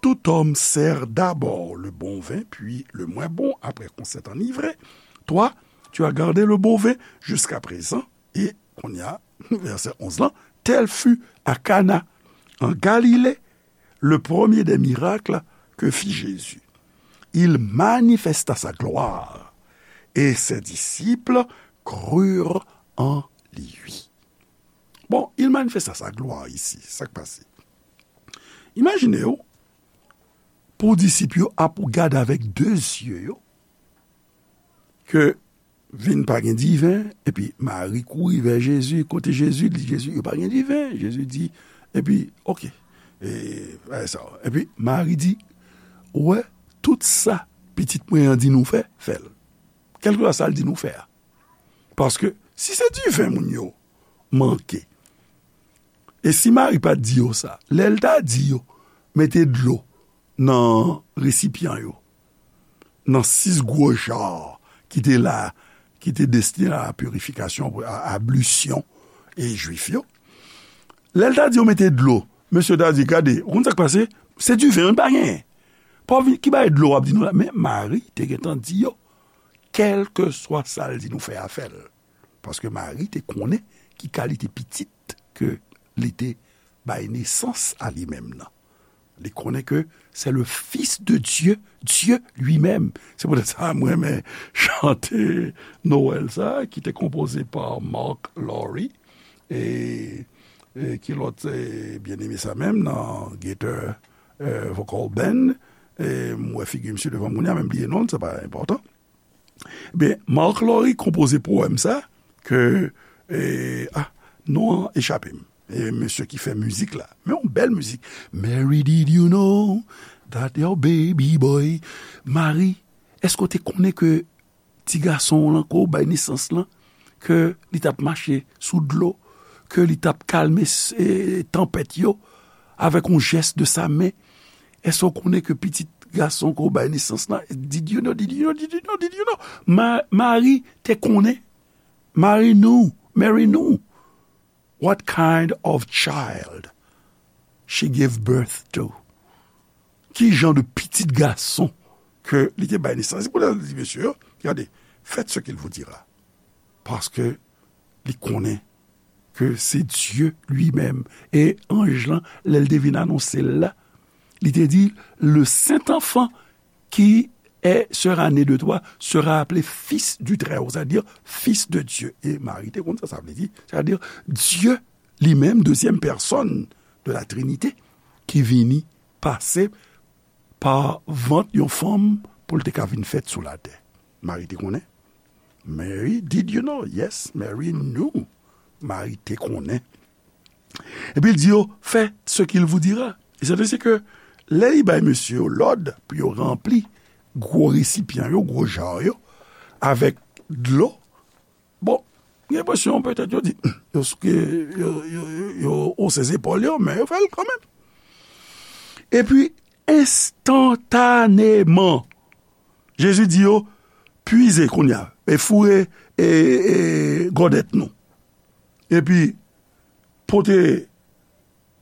tout homme sert d'abord le bon vin, puis le moins bon, après qu'on s'est enivré. Toi, tu as gardé le bon vin jusqu'à présent. Et, kounye a, verset onze lan, tel fut à Cana, en Galilée, le premier des miracles que fit Jésus. Il manifesta sa gloire, et ses disciples crurent en lui. Bon, il manifesta sa gloire isi, sa k pase? Imajine w, pou disip yo ap gade avèk de zye yo, ke vin pa gen diven, epi Mari kouri vè Jezi, kote Jezi, li di Jezi, yo pa gen diven. Jezi di, epi, oke, e, bagay sa. Epi Mari di, ou wè, tout sa pitit mwen an di nou fè, fè l. Kèlkeswa sa l di nou fè a. Paske, si se diven moun yo manke, e si Mari pa t di yo sa, lè l ta di yo, mete dlo nan resipyan yo, nan sis gwo ja ki te la, ki te destine a la purifikasyon, a ablisyon e Jwif yo. Lè l ta di yo mete dlo, mesye ta di, gade, ou konn sa k pase? Se diven, nou pa genyen. Pa vin, ki bagay dlo w ap di nou la? Men Mari te gentan di yo, kèlkeswa sa l di nou fè a, fè l. Paske Mari te konnen ki kalite pitit ke li te bay nesans a li menm nan. Li konnen ke c'est le Fils de Dieu, Dieu lui-même. Se poutèt sa mwen renmen chante Nwèl sa, ki te konpoze pa Mark Lowry, e, e ki lòt, e, byeneme sa menm nan Gaither, e, Vocal Band, e, m wè figi misye devan m kounye a, men m bliye non l, se pa enpòtan. Ebyen, Mark Lowry konpoze powèm sa, ke, e, a, non an echape m. E mesye ki fè mizik la. Men yon bèl mizik. Mary, did you know that your baby boy, Mari, èske w te konnen ke ti gason w lan, ke w bay nesans lan, ke li t ap mache sou dlo, ke li t ap kalme s-, e, tanpèt yo, avèk yon jès de sa men? Èske w konnen ke pitit gason ke w bay nesans lan, did you know, did you know, did you know, did you know? Ma-, Mari te konnen. Mari knew, Mary knew what kind of child she gave birth to. Ki jan de pitit gason ke li te bay nesans? Se pou sa li di mesye yo, gade, faites ce qu'il vous dira. Paske li konnen ke se Dye li menm. E anj lan, lè l te vin anonse l la, li te di, le saint enfant qui est, sera né de toi sera appelé Fils du Très-Haut, c'est-à-dire Fils de Dieu. E Mari te konn sa, sa vle di, c'est-à-dire Dye li menm, dezyèm pèsòn de la Trinite, ki vini pase pa vant yon fanm pou l te ka vin fèt sou latè. Mari te konnen. Mary, did you know? Yes, Mary knew. Mari te konnen. Epi l di yo, faites ce qu'il vous dira. E se ke lè li bay mesye yo lòd pou yo ranpli gwo resipyan yo, gwo ja yo, avèk dlo, bon, gen enpresyon petèt yo di, yo, yo, yo, yo, yo ose zepòl yo, men yo fè l kanmenm. Epi, enstantaneman, Jezi di yo, puize kounye a, e foure, e, e, gòdèt nou. Epi, pote,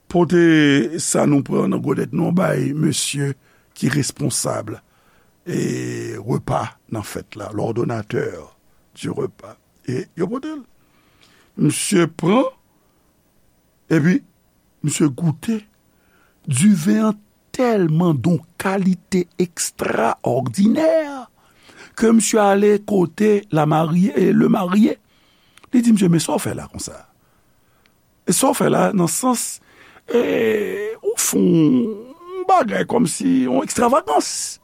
pote sa nou pran nan gòdèt nou bay mesye ki responsab e repa nan fèt la, l'ordonnateur du repas. E yo pote l. Misye pran, epi misye goute. Diven an tèlman d on kalite ekstraòdinè ke misye ale kote la marye, e le marye. Li di misye, "Men sa w fè la konsa? E sa w fè la nan sans, e, ou fè yon bagay kòmsi yon ekstravagans."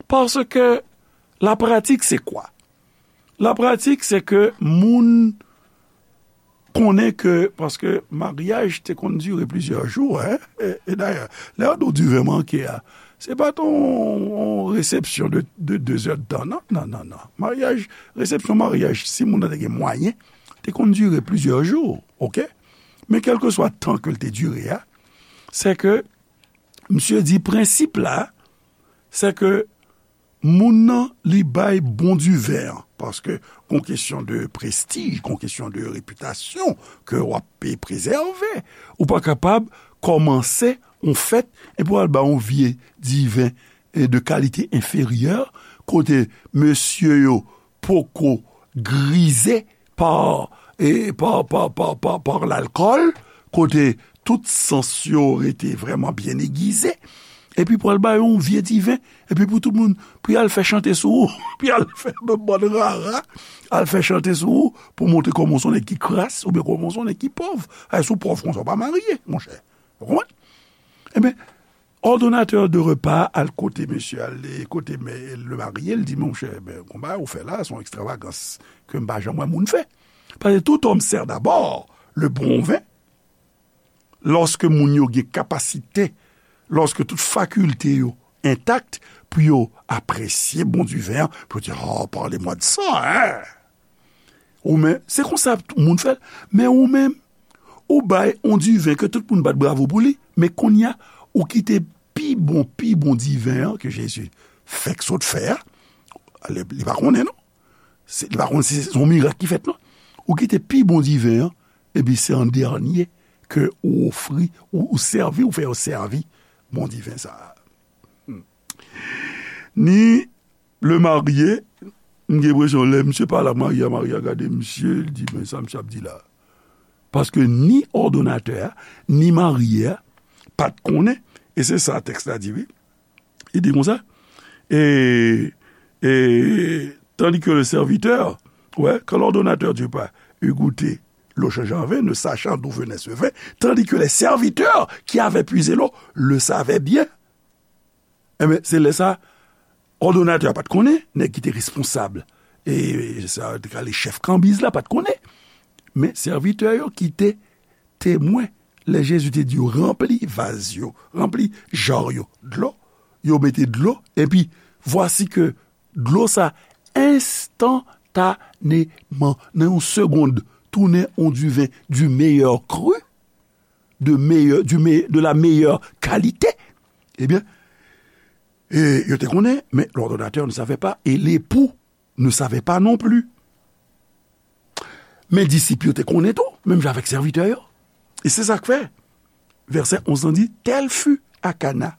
Paske la pratik se kwa? La pratik se ke moun konnen ke, paske maryaj te konn dire plizyè jou, en, e, e dayè, lè yo di w diven manke a, se pa t on, on resepsyon de, de de zè d tan, non, non, non, non. Maryaj, resepsyon maryaj, si moun nan te gen mwayen, te konn dire plizyè jou, oke? Men kèlkeswa tan ke l te dire a, se ke misye di prensip la, se ke moun nan, li bay bon diven an, paske gon kesyon de prestij, gon kesyon de repitasyon ke w ap pe prezève. Ou pa kapab kòmanse yon fèt epi w al bay yon vye diven, e, de kalite enferyè, kote mesye yo poko grize pa, e, pa, pa, pa, pa, pa lalkòl, kote tout sans yo rete vrèman byen egize, epi pou al ba yo yon vye diven, epi pou tout moun, pou y al fè chante sou ou, pou y al fè bann rara, al fè chante sou ou, pou montre kòman w se yon nèg ki kras, oubyen kòman w se yon nèg ki pòv. Ay, si w pòv konsa, w pa marye, monchè. Ou konprann? Ebyen, òdonatè de repa al kote mesye, al kote mè, le marye, l di, "Monchè, ben, konba ou fè la, se yon ekstravagans ke m pa janm wè moun fè." Paske tout homme sert d'abord le bon vin, lòske moun yo gen kapasite, lòske tout fakilte yo entak, pou yo apresye bon diven an, pou yo di, "Oh, parlez-moi de ça, hein!" Ou menm, se konsa tout moun fè l. Men ou menm, ou bay on diven ke tout moun bat bravo pou li, men kounye a, ou kite pi bon, pi bon diven an ke Jezi fèk sot fè a, li, li pa konnen non. Se, li pa konn si se yon mirak ki fèt non. Ou kite pi bon diven an, epi se an dènye ke ou ofri, ou, ou sèvi, ou fè yo sèvi bon diven sa a. Hmm. Ni le marye, m gen enpresyon lè misye pale ak marye a, marye a gade misye, li di, "Men sa misye ap di la." Paske ni òdonatè a, ni marye a pa t konnen, e se sa tèks la di, wi. Li di konsa, et, et tandis que le serviteur, ouais, quand l'ordonnateur du repas eut goûté l'eau changée en vin, ne sachant d'où venait ce vin, tandis que les serviteurs qui avaient puisé l'eau le savaient bien. Enben, se lè sa, òdonatè a pa t konnen, nèg ki te responsab, e sa te ka rele chèf kanbiz la pa t konnen. Men sèvitè yo ki te temwen, lè Jezi te di yo, "Ranpli vaz yo, ranpli jar yo dlo," yo mete dlo, epi vwasi ke dlo sa enstantaneman, nan yon segonn, tounen yon diven du meilleur cru, de meilleur, du me-, de la meilleure qualité, ebyen, e, yo te konnen, mais l'ordonnateur ne savait pas, et l'époux ne savait pas non plus. Men disip yo te konnen tou, menm jan avèk sèvitè yo. E se sa k fè, vèsè onz lan di, Tel fut à Cana,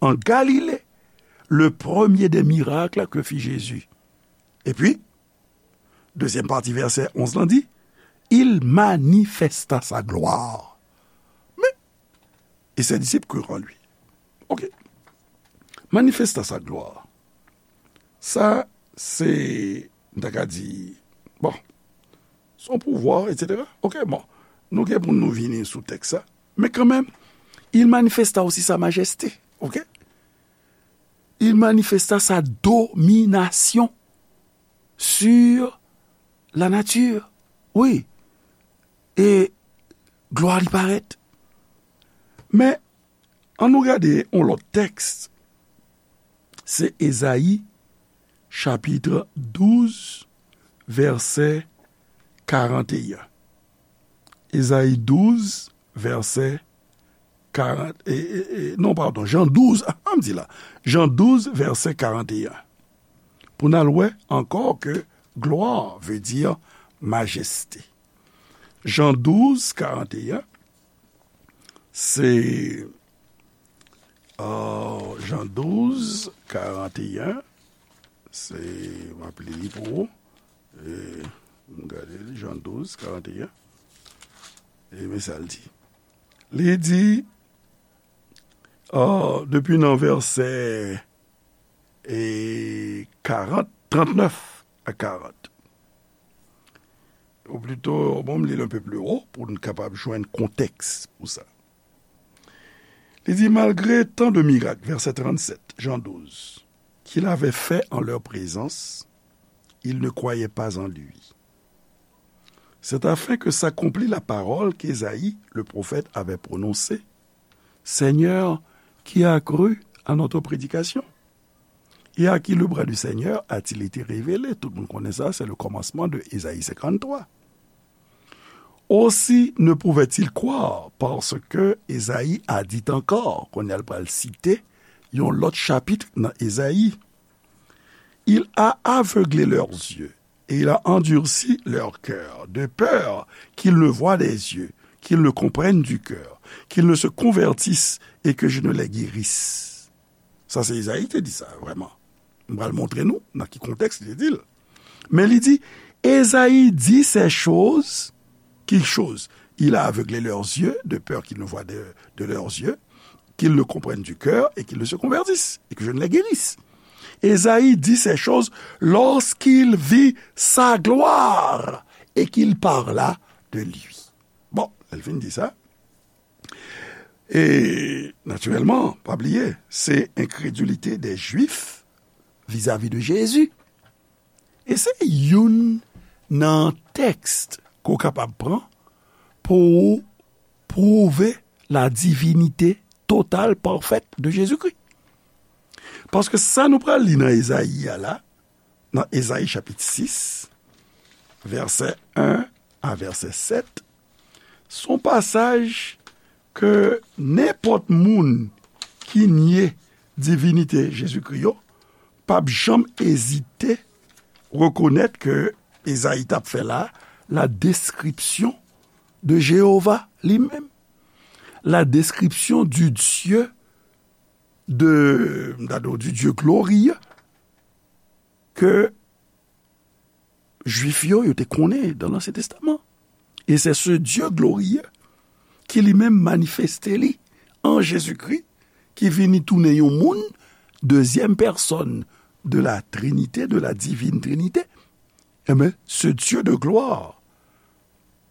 en Galilée, le premier des miracles que fit Jésus. Epi, dezyèm pati vèsè onz lan di, Il manifesta sa gloire. Men, et ses disciples crurent en lui. Ok. Manifesta sa gloire. Sa, se, m ta ka di, bon, son pouvwa, etsetera. Ok, bon. Nou gen pou nou vini sou tèks sa. Men kanmenm, il manifesta aussi sa majesté. Ok? Il manifesta sa domination sur la nature. Wi. E glwa li parèt. Men, ann nou gade yon lòt tèks. Se Ezayi, chapit douz, vèsè karant e en. Ezayi douz, vèsè karant, e, e, e, non, padon, Jan douz, a, an m di la, Jan douz, vèsè karant e en. Pou n al wè ankò ke gloire veut dire majesté. Jan douz, karant e en, se Ah, Jan douz, karanteyen, se, m ap li li pou ou. E, m gade li, Jan douz, karanteyen. E men sa l di. Li di, ah, depi nan vèsè, e, karant, trannèf a karant. Ou plito, bon, m li l un peu plus haut pou n kapab jwenn kontèks pou sa. Li di, malgré tant de miracles, verset trente-sept, Jean douze, qu'il avait fait en leur présence, ils ne croyaient pas en lui. C'est afin que s'accomplît la parole qu'Ésaïe, le prophète, avait prononcée. Seigneur, qui a cru à notre prédication? Et à qui le bras du Seigneur a-t-il été révélé? Tout moun konnen sa, se le kòmansman de Ezayi senkanntwa. Aussi ne pouvaient-ils croire, parce que Ezayi a dit encore, kounye a l pral site yon lòt chapit nan Ezayi. Il a aveuglé leurs yeux, et il a endurci leur cœur, de peur qu'ils ne voient des yeux, qu'ils ne comprennent du cœur, qu'ils ne se convertissent et que je ne les guérisse. Sa se Ezayi te di sa, vrèman. M pral montre nou nan ki kontèks li te di l. Men li di, Ezayi di ces choses, qui choses? Il a aveuglé leurs yeux, de peur qu'ils ne voient de, de leurs yeux, qu'ils ne comprennent du cœur et qu'ils ne se convertissent, et que je ne les guérisse. Ezayi dit ces choses lorsqu'il vit sa gloire et qu'il parla de lui. Bon, lè l fin di sa, e, natirèlman, pa bliye, se enkredilite dè Jwif vizavi de Jezi. E se youn nan tèks ke w kapab pran pou w pwouve la divinite total, pafèt de Jezikri. Paske sa nou pral li nan Ezayi a la, nan Ezayi chapit sis, vèsè en a vèsè sèt, se yon pasaj ke nenpòt moun ki nye divinite Jezikri yo p ap janm ezite rekonèt ke Ezayi t ap fè la, la description de Jéhovah li menm, la description du Dieu de, m ta di w, du Dieu glorieux ke Jwif yo, yo te konnen dans l'Ancien Testament. Et c'est ce Dieu glorieux ki li menm manifeste li an Jezikri, ki vini tounen yon moun, deuxième personne de la Trinité, de la divine Trinité. Enben, ce Dieu de gloire,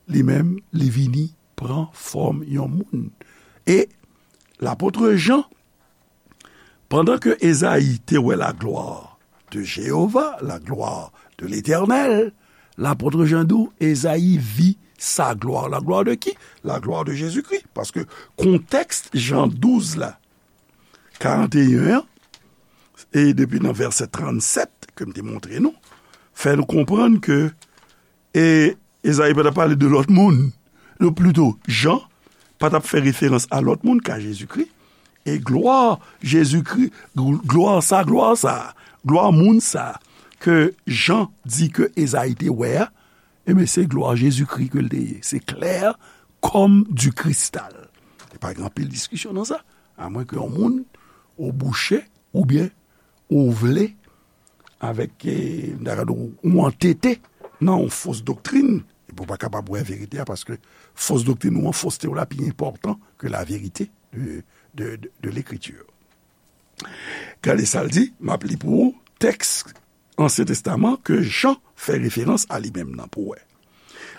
li menm, li vini pran fòm yon moun. E lapot Jan, pandan ke Ezayi te wè la gloire de Jéhovah, la gloire de l'Éternel, lapot Jan di w, Ezayi vi sa gloire. La gloire de qui? La gloire de Jésus-Christ. Paske kontèks Jan douz la, karanteyen an, e depi nan vèsè trannsèt ke m te montre nou, fè nou konprann ke, e, Ezayi pa t ap pale de lòt moun. Non, plito, Jan pa t ap fè referans a lòt moun ka Jezikri. E glwa Jezikri, glwa sa, glwa sa, glwa moun sa ke Jan di ke Ezayi te wè a, enben, se glwa Jezikri ke l te ye. Se klè kòm di kristal. E pa gen anpil diskisyon nan sa. Amwen ke yon moun ou bouche oubyen ou vle avèk, e, m ta ka di w, ou antete nan yon fos doktrin, epi w pa kapab wè verite a, paske fos doktrin ou an, foste w la pi enpòtan ke la verite de, de, de, de Lekriti. Gade sa l di, m ap li pou ou, tèks Ansyen Testaman ke Jan fè referans a li menm nan pou wè.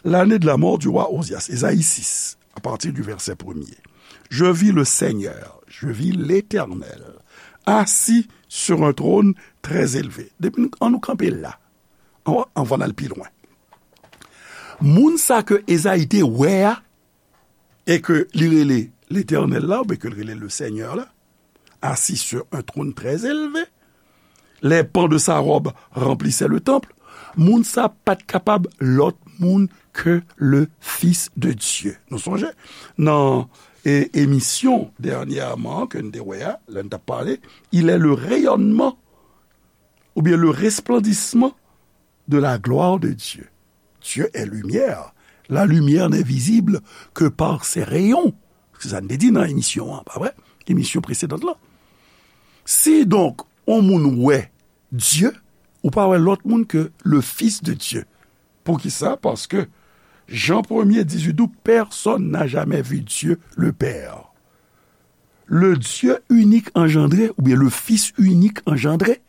L'année de la mort du roi Ozias, Ezayi sis, à partir du verset premier. Je vis le Seigneur, je vis l'Éternel, assis sur un trône très élevé. Depi nou, an nou kanpe la, an, anvan n al pi lwen. Moun sa ke Ezayi te wè a, e ke li rele Letènèl la, oubyen ke l rele le Seigneur la, assis sur un trône très élevé, les pans de sa robe remplissaient le temple, moun sa pa t kapab lòt moun ke le Fils de Dieu. Nou sonje, nan, e, emisyon dènyèman ke n te wè a, lè n t ap pale, il est le rayonnement, oubyen le resplendissement de la gloire de Dieu. Dieu est lumière. La lumière n'est visible que par ses rayons. Se sa n te di nan emisyon an, pa vre? Emisyon presedan lan. Si donk, yon moun wè Dye, ou pa wè lòt moun ke le Fils de Dieu. Poukisa? Paske Jan premye dizuit di w, personne n'a jamais vu Dieu le Père. Le Dieu unique engendré, oubyen le Fils unique engendré,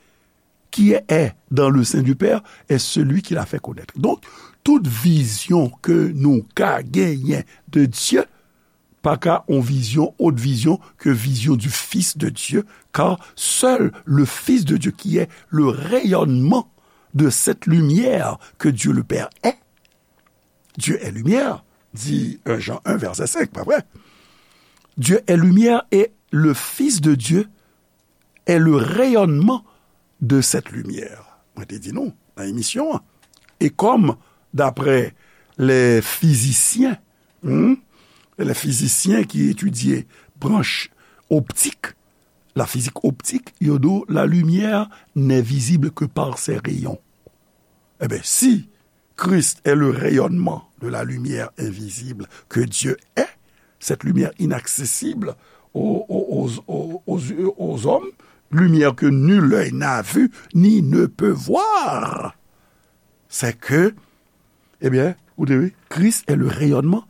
qui est dans le sein du Père, est celui qui l'a fait connaître. Donk, tout vizyon ke nou ka genyen de Dye, pa ka yon vizyon, autre vision que vision du Fils de Dieu, car seul le Fils de Dieu, qui est le rayonnement de cette lumière que Dieu le Père est, Dieu est lumière, dit un Jean un, verset cinq, pa vre? Dieu est lumière et le Fils de Dieu est le rayonnement de cette lumière. Mwen te di nou nan emisyon an. E kòm, d'après les physiciens, hmm, les physiciens qui étudient branche optique, la physique optique, yo di w, la lumière n'est visible que par ses rayons. Eben, si Christ est le rayonnement de la lumière invisible que Dieu est, cette lumière inaccessible aux, aux, aux, aux, aux, aux hommes, lumière que nul œil n'a vue ni ne peut voir. C'est que, eh bien, ou te wi, Christ est le rayonnement,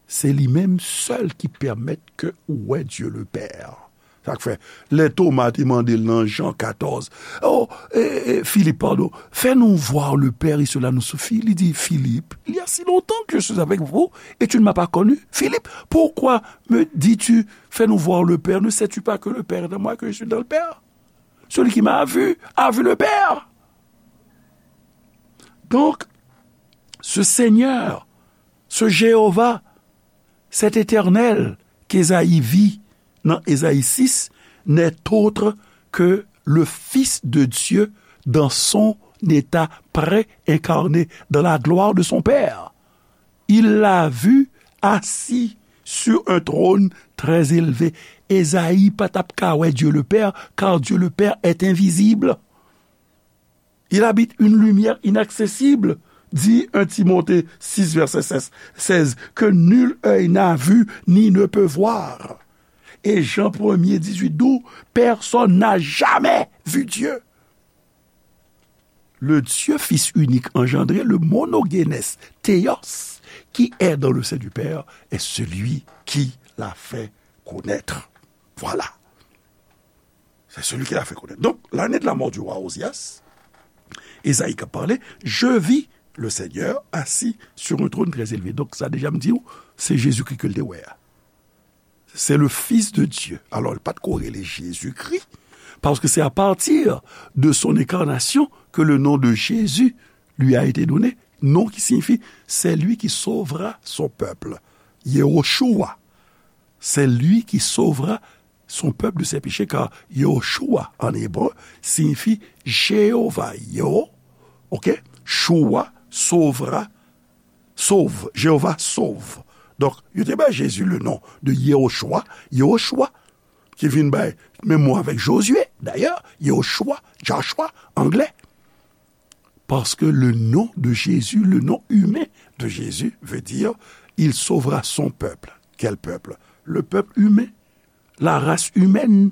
se li menm sèl ki pèmèt ke ou wè Dieu le Père. Sa k fè, lè Toma te mande l nan Jan katòz, oh, eh, eh, Philippe, pardon, fais-nous voir le Père et cela nous suffit. Li di, Philippe, il y a si longtemps que je suis avec vous et tu ne m'as pas connu. Philippe, pourquoi me dis-tu, fais-nous voir le Père? Ne sais-tu pas que le Père est en moi, que je suis dans le Père? Celui qui m'a vu a vu le Père. Donc, ce Seigneur, ce Jéhovah, cet Éternel qu'Ésaïe vit dans Ésaïe six n'est autre que le Fils de Dieu dans son état préincarné, dans la gloire de son Père. Il l'a vu assis sur un trône très élevé. Ésaïe pa t ap ka wè Dieu le Père, car Dieu le Père est invisible. Il habite une lumière inaccessible, dit un Timothée six, verset seize, que nul œil n'a vu ni ne peut voir. Et Jean premier, dix-huit, douze, personne n'a jamais vu Dieu. Le Dieu Fils unique engendré, le monogenes Théos, qui est dans le sein du Père, est celui qui l'a fait connaître. Voilà. C'est celui qui l'a fait connaître. Donc, l'année de la mort du roi Ozias, Esaïe k ap pale, je vis le Seigneur assis sur un trône très élevé. Donk, sa deja m di w, se Jezikri ke l te wè a. C'est le Fils de Dieu. Alò, l pa t ko rele Jezikri, paske c'est à partir de son incarnation que le nom de Jésus lui a été donné, nom qui signifie celui qui sauvera son peuple. Yehoshua, c'est lui qui sauvera son peuple de ses péchés, car Yehoshua en hébreu signifie Jéhovah, Yeho, ok? Shua, sauvera, sauve, Jéhovah sauve. Donk, yo te bay Jezi le non de Yehoshua, Yehoshua, ki vin bay menm mo avèk Jozye, dayè, Yehoshua, Joshua, anglè. Parce que le nom de Jésus, le nom humain de Jésus veut dire, il sauvera son peuple. Quel peuple? Le peuple humain, la race humaine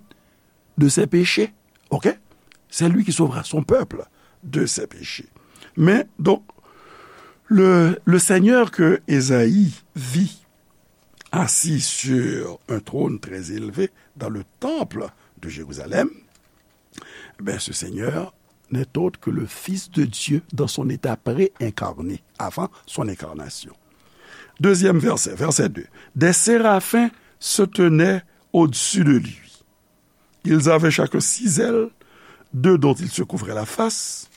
de ses péchés. Ok? C'est lui qui sauvera son peuple de ses péchés. Mais donc, le, le Seigneur que Ésaïe vit assis sur un trône très élevé dans le temple de Jérusalem, ben, ce Seigneur n'est autre que le Fils de Dieu dans son état préincarné, avant son incarnation. Deuxième verset, verset deux. Des séraphins se tenaient au-dessus de lui. Ils avaient chacun six ailes, deux dont ils se couvraient la face,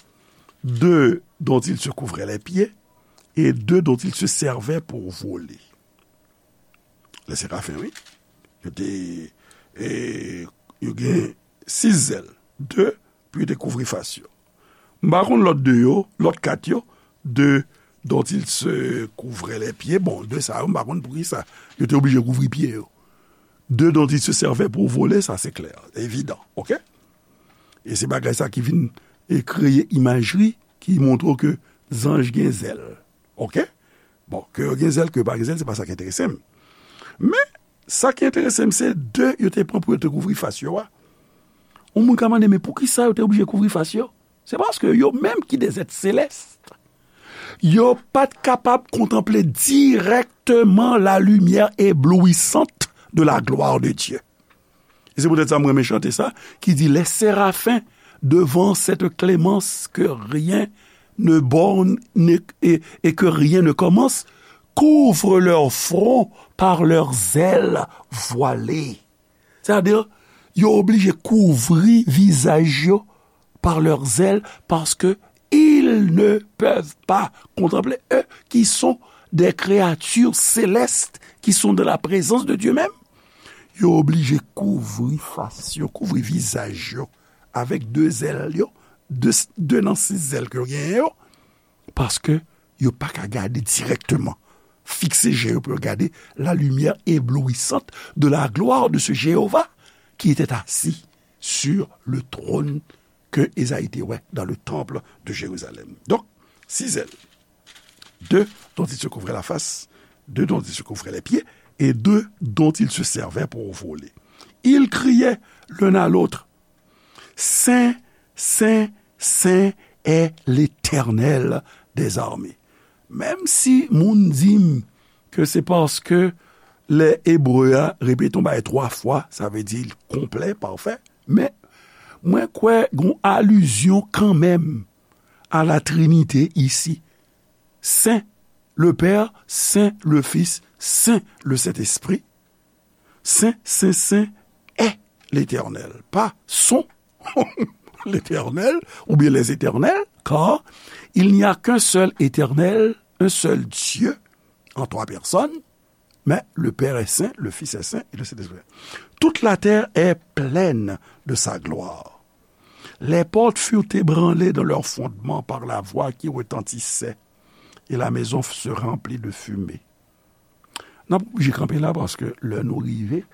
deux dont ils se couvraient les pieds, et deux dont ils se servaient pour voler. Les séraphins, wi. Yo te, e, yo gen sis zèl. De pou yo te kouvri fas yo. M pa konn lòt de yo, lòt kat yo, de dont ils se couvraient les pieds. Bon, de sa yo, m pa konn poukisa yo te oblije kouvri pye yo. De dont ils se servaient pour voler, sa se klè, evidan, ok? E se bagay sa ki vin, e, kreye imajri ki montre w ke zanj gen zèl, ok? Bon, ke yo gen zèl, ke yo pa gen zèl, se pa sa ki enterese m. Men, sa ki enterese m, se de yo te pran pou yo te kouvri fas yo a. Yon moun ka mande, men poukisa yo te oblije kouvri fas yo? Se paske yo menm ki de zèt selès, yo pa t kapab kontanple dirèkteman la lumière éblouissante de la gloire de Dieu. E se poutèt sa mwen renmen chante sa, ki di, les séraphins devant cette clémence que rien ne borne ne- et, et que rien ne commence, couvrent leur front par leurs ailes voilées. Sètadi, yo oblije kouvri vizaj yo par leurs ailes, parce que ils ne peuvent pas contempler, eux qui sont des créatures célestes, qui sont dans la présence de Dieu même. Yo oblije kouvri fas yo, kouvri vizaj yo avèk de zèl yo, de, de nan sis zèl ke yo genyen yo, paske yo pa ka gade dirèkteman, fikse je yo pou yo gade la lumière éblouissante de la gloire de ce Jéhovah qui était assis sur le trône que Esaïe te wè dans le temple de Jérusalem. Donc, six ailes. Deux dont il se couvrait la face, deux dont il se couvrait les pieds, et deux dont il se servait pour voler. Ils criaient l'un à l'autre, Saint, Saint, Saint est l'Éternel des armées. Menm si moun di m ke se paske lè ebre a repete yon bagay twa fwa, sa vle di l konplè, pafè, men mwen kwè gon alizyon kanmenm a la Trinité isi. Saint le Père, Saint le Fils, Saint le Saint-Esprit. Saint, Saint, Saint est l'Éternel. Pas sont l'Éternel ou bien les éternels, car il n'y a qu'un seul Éternel, un seul Dieu, en trois personnes, mais le Père est saint, le Fils est saint et le Saint-Esprit. Toute la terre est pleine de sa gloire. Les portes furent ébranlées dans leur fondement par la voix qui retentissait, et la maison se remplit de fumée. N ap oblije kanpe la paske lè nou rive,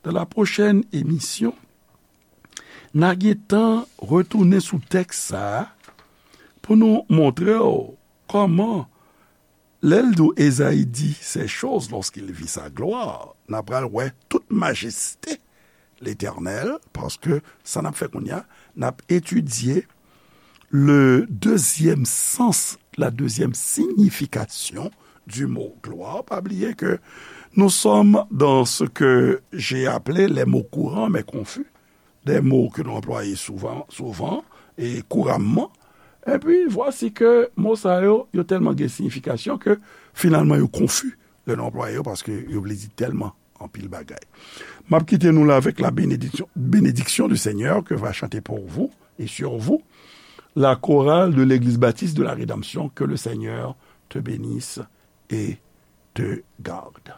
dans la prochaine émission, n a gentan retounen sou tèks sa a pou nou montre w kòman, lè l di w Ezayi dit ces choses lorsqu'il vit sa gloire, n a pral wè tout majeste Letènèl, paske sa n ap fè kounye a, n ap etidye le deuxième sens, la deuxième signification du mot gloire. Pa bliye ke nous sommes dans ce que j'ai appelé les mots courants mais confus, des mots que nous employons souvent, souvent et couramment. Et puis, voici que mo sa yo, yo tèlman gen siyifikasyon ke finalman yo konfi lè nou anplwaye yo, paske yo vle di tèlman anpil bagay. M ap kite nou la avec la bénédiction, bénédiction du Seigneur que va chanter pour vous et sur vous la chorale de l'Église Baptiste de la Rédemption. Que le Seigneur te bénisse et te garde.